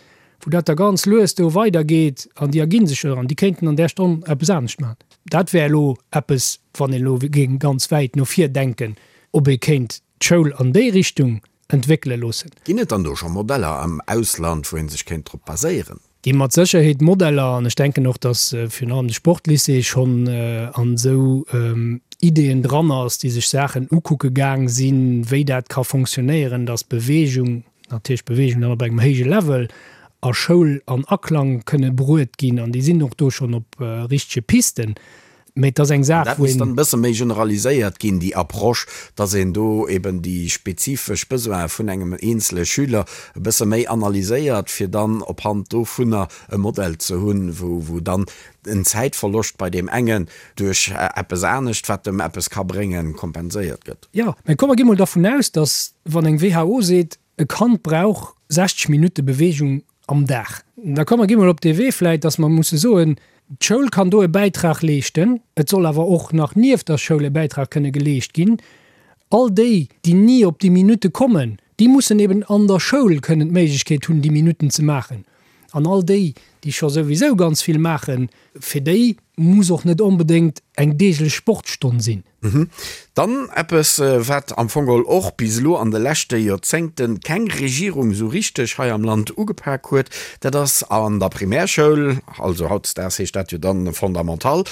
wou dat da ganz lues do weidergeet an déi erginn sech jo an déi kéinten an där Stonn eppes anescht maachen. Dat wär elo eppes, wann een elo géing ganz wäit no vir denken, ob ee kéint d'Schoul an déi Richtung entwéckele loossen. Ginn et dann do scho Modeller am Ausland, wou ee sech kéint drop baséieren? Gi mat Sécherheet Modeller an ech denken och, datt virun allem de Sportlycée schonn an esou Ideeën dran ass, déi sech Saachen ukucke gaang sinn, wéi dat ka fonctionnéieren, datt Beweegung, natierlech Beweegung dann op engem héije Level, a Schoul an Aklang kënne bruet ginn an déi sinn och do schonn op richtege Pisten. Mee et ass eng Saach, Dat wou misst een. dann e bësse méi generaliséiert ginn, déi Approche, dass een do eben déi spezifesch Besoine vun engem eenzele Schüler e bësse méi analyséiert, fir dann op Hand dovunner e Modell ze hunn, wou, wou dann en Zäitverloscht bei deem engen duerch eppes anescht, wat em eppes ka bréngen, kompenséiert gëtt. Jo, mä komm mer gi mol dervun aus, dass, wann eng WHO seet, e Kand brauch 60 Minutte Bewegung am Dag. Da komm mer gi mol op dee Wee vläit, dass mer musse soen, d'Schoul kann do e Bäitrag leeschten, et soll awer och nach nieft der Schoul e Bäitrag kënne geleescht ginn. All déi, déi ni op déi Minutte kommen, déi mussen eben an der Schoul kënnen d'Méiglechkeet hunn, déi Minutten ze maachen. An all déi, déi scho souwisou ganz vill maachen, fir déi muss och net onbedéngt eng deeglech Sportstonn sinn. Dann eppes, wat am Fong geholl och bis elo an de leschte Joerzéngte keng Regierung esou richteg hei am Land ugepak huet, dat ass an der Primärschoul, also hautdesdaags heescht dat jo dann Fondamental,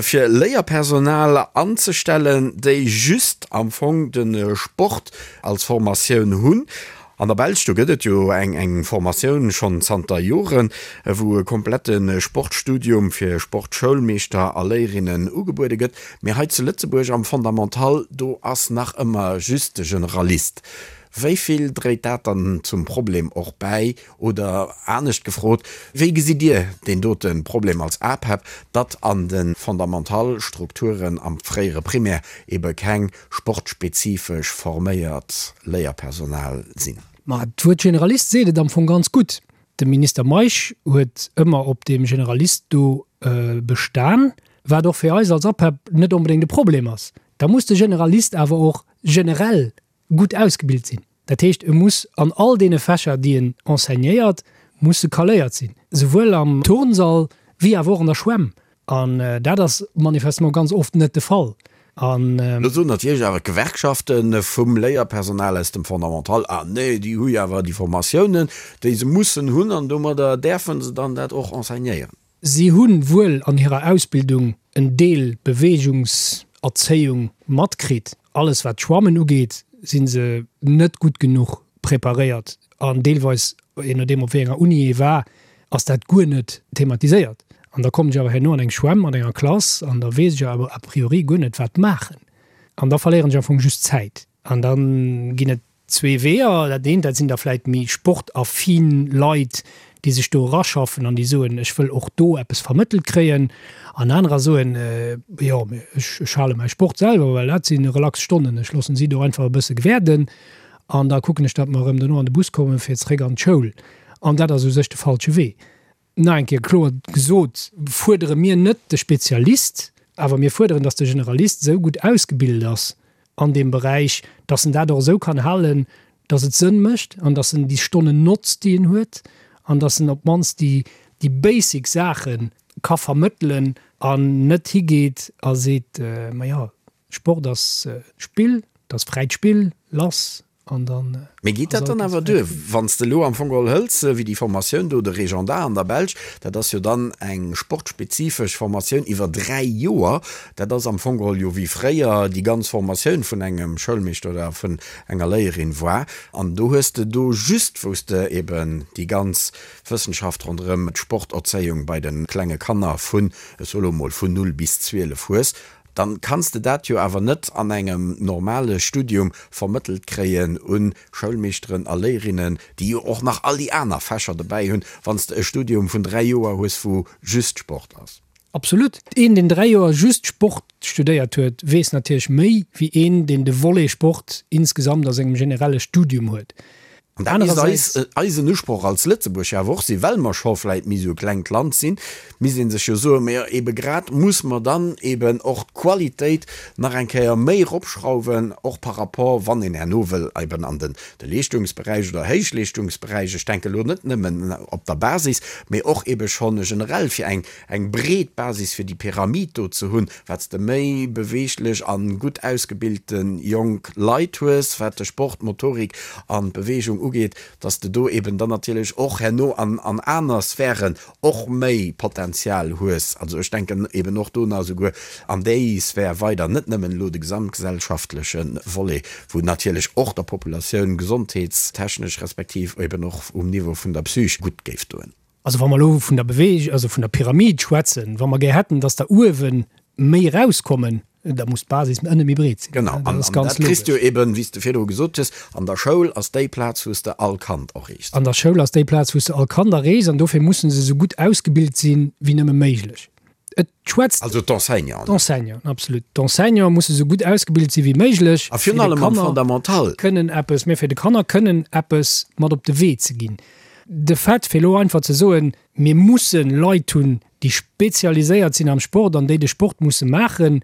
fir Léierpersonal anzestellen, déi just am Fong de Sport als Formatioun hunn. An der Belsch, do gëtt et jo eng eng Formatioun schonn zanter Joren, wou e komplette Sportstudium fir Sportschoulmeeschter a Léierinnen ugebuede gëtt. Mee hei zu Lëtzebuerg am Fondamental, do ass nach ëmmer just de Generalist. Wéi vill dréit dat dann zum Problem och bäi? Oder anescht gefrot, wéi gesitt Dir deen dote Problem als APEP, datt an de Fondamental-Strukturen am fréiere Primaire ebe keng sportspezifesch forméiert Léierpersonal sinn. Ma d'Wuert Generalist seet et am Fong ganz gutt. De Minister Meisch huet ëmmer op deem Generalist do bestan, wat och fir eis als APEP net onbedéngt e Problem ass. Da muss de Generalist awer och generell gutt ausgebilt sinn. Dat heescht, e muss an all deene Fächer, déi en enseignéiert, muss e caléiert sinn, souwuel am Turnsall wéi awer och an der Schwämm. An dat ass manifestement ganz oft net de Fall. An. Lo soen natierlech awer d'Gewerkschafte vum Léierpersonal aus dem Fondamental, Ah nee, déi hu jo awer déi Formatiounen, déi se mussen hunn, an domadder däerfe se dann dat och enseignéieren. Si hu wuel an hirer Ausbildung en Deel Beweegungserzéiung matkritt. Alles wat d'Schwammen ugeet, si se net gutt genuch preparéiert an deelweis, je nodeem op wéi enger Uni ee war, ass dat guer net thematiséiert. An da kommen ech awer herno an eng Schwämm mat enger Klass an da weess ech awer a priori guer net wat maachen. An da verléieren ech am Fong just Zäit. An da ginn et Zwee Weeër, Dat eent, dat sinn da vläit méi sportaffin Leit, déi sech do eraschaffen an déi soen, ech wëll och do eppes vermëttelt kréien. An anerer soen, jo, mee ech, ech hale mäi Sport selwer, well dat si relax Stonnen, ech loossen si do einfach e bësse gewäerden an da kucken ech, datt mer erëm dono an de Bus kommen, fir zeréck an d'Schoul. An dat ass u sech de falsche Wee. Nach eng Kéier kloer gesot, fuerdere mir net de Spezialist, awer mir fuerderen, dass de Generalist esou gutt ausgebilt ass an deem Beräich, dass en dat och esou kann halen, dass et Sënn mécht an dass en déi Stonnen notzt, déi en huet, an dass en op d'mannst déi, déi basic Saache ka vermëttelen an net higeet a seet, Ma jo, Sport ass Spill, et ass fräit Spill, lass, An dann Mee geet dat dann awer duer, wann s de elo am Fong geholl hëls, wéi déi Formatioun do, de Régendat an der Belsch, dat ass jo dann eng sportspezifesch Formatioun iwwer 3 Joer, dat ass am Fong geholl jo wéi fréier déi ganz Formatioun vun engem Schoulmeeschter oder vun enger Léierin war. An do hues de do just, wou s de eben déi ganz Wëssenschaft ronderëm d'Sporterzéiung bei de klenge Kanner vun, ech soe lo mol, vun 0 bis 12 hues, Dann kanns de dat jo awer net an engem normale Studium vermëttelt kréien un Schoulmeeschteren a Léierinnen, déi jo och nach all déi aner Fächer dobäi hunn, wann s de e Studium vun 3 Joer hues, wou just Sport ass. Absolut. Een, deen 3 Joer just Sport studéiert huet, weess natierlech méi wéi een, deen de Volet Sport insgesamt a sengem generelle Studium huet. An dat misst eis, eisen Usproch als Lëtzebuerg jo awer och sinn, well mer scho vläit méi esou e klengt Land sinn, misst ee sech jo soen, mä ebe grad muss mer dann eben och d'Qualitéit nach eng Kéier méi eropschrauwen, och par rapport, wann een herno wëll eben an den de Leeschtungsberäich oder Héichleeschtungsberäich, ech denke elo net nëmmen op der Basis, mä och ebe schonn generell fir eng eng breet Basis fir déi Pyramid do ze hunn, wat s de méi beweeglech a gutt ausgebilte jonk Leit hues, wat de Sport, d'Motorik an d'Beweegung ugeet, dass de do eben dann natierlech och herno an an aner Sphären och méi Potenzial hues. Also ech denken eben och do nach esouguer an déi Sphär weider, net nëmmen elo de gesamtgesellschaftleche Volet, wou natierlech och der Populatioun gesondheetstechnesch respektiv eben och um Niveau vun der Psych gutt géif doen. Also wa mer elo vun der Beweeg-, also vun der Pyramid schwätzen, wa mer gär hätten, dass der uewe méi erauskommen, da muss d'Basis ënne méi breet sinn. Genau, an dat kriss du eben, wéi s de virdru gesot hues, an der Schoul ass déi Plaz, wou s de all Kand erreechs. An der Schoul ass déi Plaz, wou s de all Kand erreechs, an dofir musse se esou gutt ausgebilt sinn, wéi nëmme méiglech. Et schwätzt. Also d'Enseignanten. D'Enseignanten, absolut. D'Enseignante musse sou gutt ausgebilt si wéi méiglech. A virun allem am Fondamental. Kënnen eppes, mä fir de Kanner kënnen eppes mat op de Wee ze ginn. De Fait, fir elo einfach ze soen, mir musse Leit hunn, déi spezialiséiert sinn am Sport an déi de Sport musse maachen,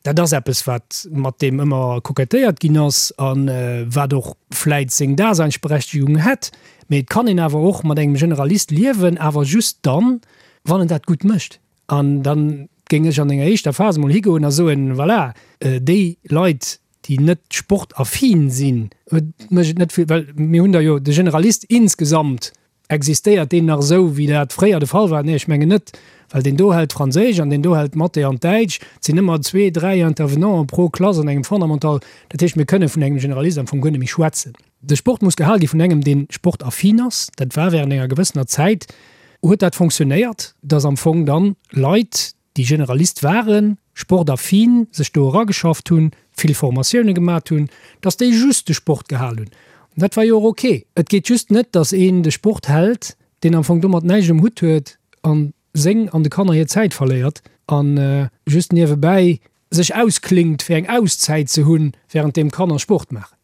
dat ass eppes, wat mat deem ëmmer kokettéiert ginn ass a wat och vläit seng Daseinsberechtigung hätt. Mee et kann een awer och mat engem Generalist liewen, awer just dann, wann en dat gutt mécht. An da géing ech an enger éischter Phas emol higoen a soen, voilà, déi Leit, déi net sportaffin sinn, mécht et net vill, well mir hunn der jo de Generalist insgesamt, existéiert deen nach esou, wéi dat fréier de Fall war? Nee, ech mengen net, well deen do hält Franséisch an deen do hält Mathé an Däitsch. Et sinn ëmmer zwee, dräi Intervenanten pro Klass an engem Fondamental. Dat heescht, mir kënne vun engem Generalist am Fong guer net méi schwätzen. De Sport muss gehal gi vun engem, dee sportaffin ass. Dat war während enger gewëssener Zäit huet dat fonctionnéiert, dass am Fong dann Leit, déi Generalist waren, sportaffin, sech do erageschafft hunn, vill Formatioune gemat hunn, dass déi just de Sport gehal hunn. An dat war jo och ok. Et geet just net, dass een de Sport hält, deen am Fong domat näischt um Hutt huet an seng an de Kanner hir Zäit verléiert a just niewebäi sech ausklingt, fir eng Auszäit ze hunn, wärend deem d'Kanner Sport maachen.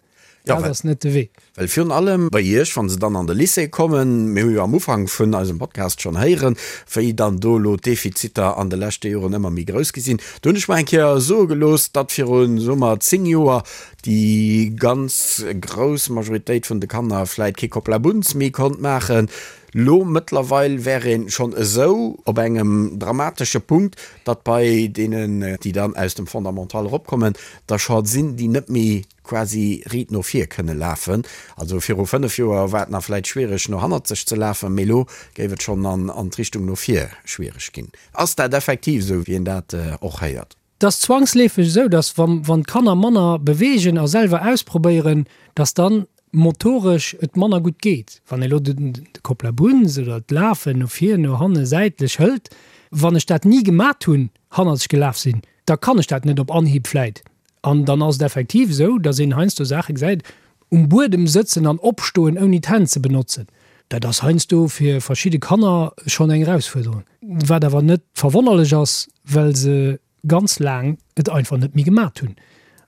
Dat ass net de Wee. Well virun allem bei Iech, wa se dann an de Lycée kommen, mir hu jo am Ufank vun eisem Podcast schonn héieren, wéi dann do elo d'Defiziter an de leschte Joren ëmmer méi grouss gi sinn. Do hunn ech mer eng Kéier soe gelooss, datt viru, soe mer, 10 Joer déi ganz grouss Majoritéit vun de Kanner vläit kee Kopplabunz méi konnt maachen. Lo mëttlerweil wär een schonn esou op engem dramatesche Punkt, datt bei deenen, déi dann aus dem Fondamental eropkommen, der scho sinn, déi net méi quasi riit no vir kënne lafen. Also viru 5 Joer war et nach vläit schwiereg no hannerzeg ze lafen, mee lo géif et schonn an d'Richtung no vir schwiereg ginn. Ass dat effektiv esou, wéi een dat och héiert? Et ass zwangsleefeg esou, dass wann d'Kanner manner beweegen a selwer ausprobéieren, dass dann motoresch et manner gutt geet. Wann ee lo de Kopplabunz oder d'Lafen no vir, no hanne, säitlech hëlt, wann ech dat ni gemat hunn, hannerzeg gelaf sinn, da kann ech dat net op Anhieb vläit. An dann ass et effektiv esou, dass een heiansdo Saache gesäit, um Buedem sëtzen an opstoen ouni d'Hänn ze benotzen, dat ass heiansdo fir verschidde Kanner schonn eng Erausfuerderung, wat awer net verwonnerlech ass, well se ganz laang et einfach net méi gemat hunn.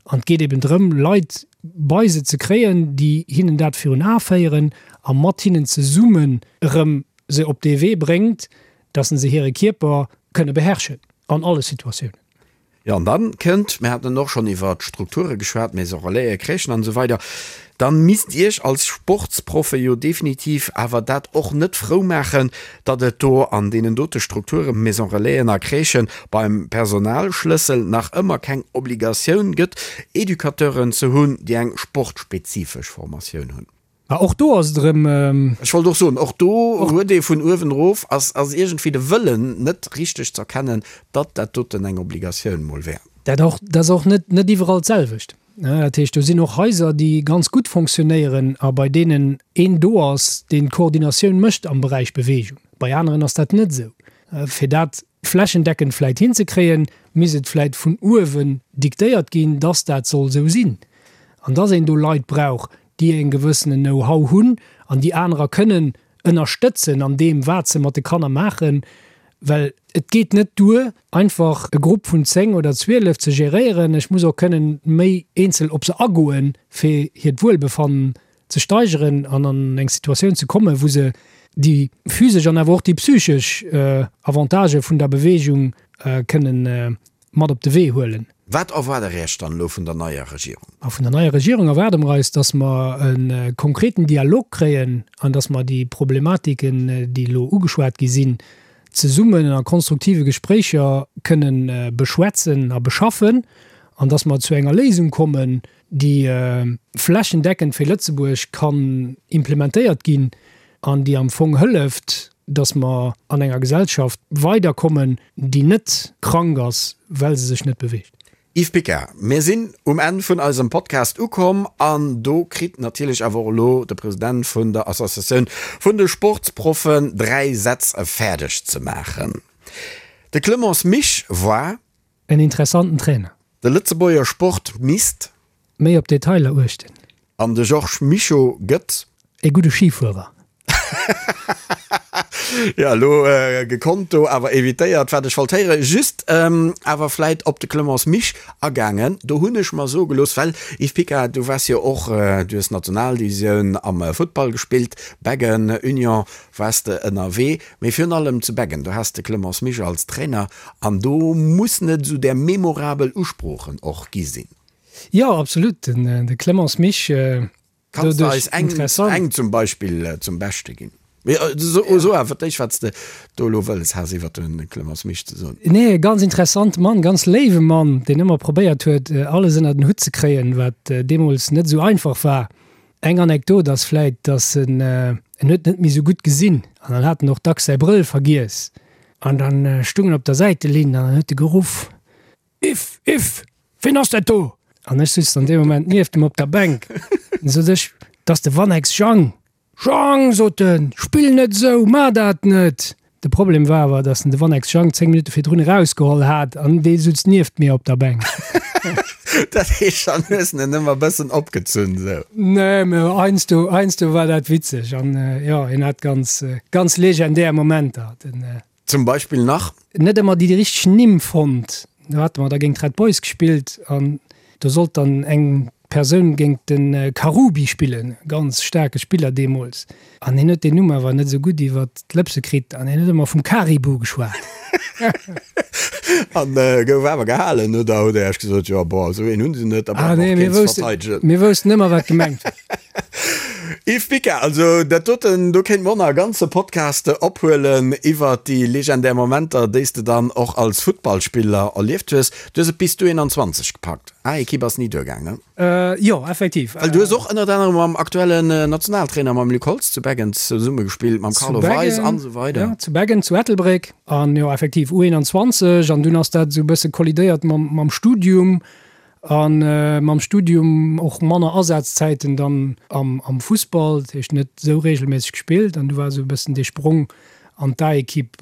An et geet eben drëm, Leit bei se ze kréien, déi hinnen dat virun Ae féieren a mat hinnen zesummen erëm se op dee Wee bréngt, dass se hire Kierper kënne beherrschen an alle Situatiounen. Jo, an dann kënnt, mir haten och schonn iwwer d'Strukture geschwat, Maison Relaisen, Crèchen an esou weider, dann misst Iech als Sportsproffe jo definitiv awer dat och net frou maachen, datt et do an deenen dote Strukturen, Maison Relaisen a Crèchen, beim Personalschlëssel nach ëmmer keng Obligatioun gëtt, Educateuren ze hunn, déi eng sportspezifesch Formatioun hunn. Mä och do ass et erëm. Ech wollt och soen, och do huet ee vun uewen erof, ass iergendwéi de Wëllen net richteg z'erkennen, datt dat doten eng Obligatioun mol wär. Dat och, dat ass och net, net iwwerall d'selwecht. Dat heescht, do sinn och Haiser, déi ganz gutt fonctionnéieren a bei deenen een do ass, deen d'Koordinatioun mécht am Beräich Beweegung. Bei aneren ass dat net esou. Fir dat flächendeckend vläit hinzekréien, misst et vläit vun uewen diktéiert ginn, dass dat soll esou sinn an dass een do Leit brauch, déi e gewëssenen Know-how hunn an déi anerer kënnen ënnerstëtzen an deem, wat se mat de Kanner maachen. Well et geet net duer, einfach e Grupp vun 10 oder 12 ze geréieren. Ech muss och kënnen méi eenzel op se agoen, fir hiert Wuelbefannen. ze steigeren an an eng Situatioun ze kommen, wou se déi physesch an awer och déi psychesch Avantagë vun der Beweegung kënnen mat op de Wee huelen. Wat erwaart Der Iech dann elo vun der neier Regierung? A vun der neier Regierung erwaarde mer eis, dass mer e konkreten Dialog kréien an dass mer déi Problematiken, déi elo ugeschwat gi sinn, zesummen a konstruktive Gespréicher kënnen beschwätzen a beschaffen an dass mer zu enger Léisung kommen, déi flächendeckend fir Lëtzebuerg kann implementéiert ginn an déi am Fong hëlleft, dass mer an enger Gesellschaft weiderkommen, déi net krank ass, well se sech net beweegt. Yves Picard, Mir sinn um Enn vun eisem Podcast ukomm an do kritt natierlech awer och elo de President vun der Associatioun vun de Sportsproffen 3 Sätz fäerdeg ze maachen. De Clemence Misch war. En interessanten Trainer. De Lëtzebuerger Sport misst. Méi op Detailer uechten. An de Georges Mischo gëtt. E gudde Schifuerer. Jo, elo gekonnt do awer evitéiert, wat ech wollt héieren. Just awer vläit op de Clemence Misch agaangen. Do hunn ech mer soe gelooss, well, Yves Picard, du waars jo och, du hues Nationaldivisioun am Futtball gespillt, Beggen, Union waars de ënnerwee, mee virun allem zu Beggen, do has de Clemence Misch als Trainer an do mussen et esou där memorabel Usproochen och gi sinn. Jo, absolut. Den Clemence Misch, Kanns de eis eng, eng zum Beispill zum Beschte ginn? Mee so, so awer d'éischt, wat s de do elo wëlles has iwwer de Clemence Misch ze soen. Nee, e ganz interessante Mann, ganz léiwe Mann, deen ëmmer probéiert huet, alles ënner den Hutt ze kréien, wat deemools net esou einfach war. Eng Anekdot ass vläit, dass en, en huet net méi esou gutt gesinn an dann hat en och dacks säi Brëll vergiess an dann stung en op der Säitelinn an dann huet e geruff, Iff, Iff, ween ass dat do? An ech sutz dann dee Moment nieft em op der Bänk. Dann sot ech, 't ass de Wannex Jang. Jang, sot en, spill net esou, mar dat net! De Problem war awer, datt en de Wannex Jang 10 Minutte virdrun erausgeholl hat an dee sutz nieft mir op der Bänk. Dat heescht, dann hues en en ëmmer bëssen opgezunn, esou? Nee, mä heiansdo, heiansdo war dat witzeg an jo, hien hat ganz, ganz legendär Momenter, den. Zum Beispill nach? Net ëmmer déi richteg Nimm fonnt. Do hate mer da géint d'Red Boys gespillt an do sollt dann eng Persoun géint de Karoubi spillen, ganz staarke Spiller deemools. An hien huet deen Numm awer net esou gutt iwwer d'Lëpse kritt an hien huet ëmmer vum Karibu geschwat. An gouf awer gehalen, oder hutt Der Iech gesot, jo bon, esou een hunn se net, da brauche mer och keen ze verteidegen? Mir woussten ëmmer wat gemengt war. Yves Picard, Also dat doten, do kéinte mer och nach e ganze Podcast ophuelen iwwert déi legendär Momenter, déi s de dann och als Futtballspiller erlieft hues. Du hues et bis d'U21 gepackt, A-Ekipp ass ni duergaang, ne? Jo, effektiv. Well du hues och ënnert anerem mam aktuellen Nationaltrainer, mam Luc Holtz zu Beggen zesumme gespillt, mam Carlo Weis an esou weider. Jo, zu Beggen, zu Ettelbréck an jo effektiv U21 an dunn ass dat esou e bësse kollidéiert mam Studium. A mam Studium och manner Asazäiten dann am Fussball, dat heescht net esou reegelméisseg gespillt. An du war esou e bëssen dee Sprong an d'A-Ekipp,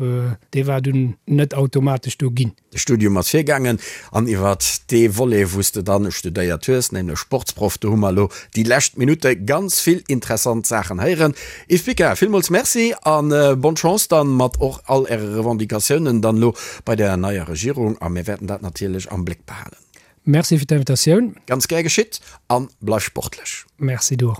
dee war dunn net automatesch do ginn. De Studium ass virgaangen an iwwert dee Volet, wou s de dann studéiert hues, nämlech Sportsproff, do hu mer elo déi lescht Minutte ganz vill interessant Saachen héieren. Yves Picard, villmools Merci a bonne Chance dann mat och all Äre Revendicatiounen dann elo bei der neier Regierung a mir wäerten dat natierlech am Bléck behalen. Merci fir d'Invitatioun. Ganz gär geschitt an bleif sportlech. Merci, du och.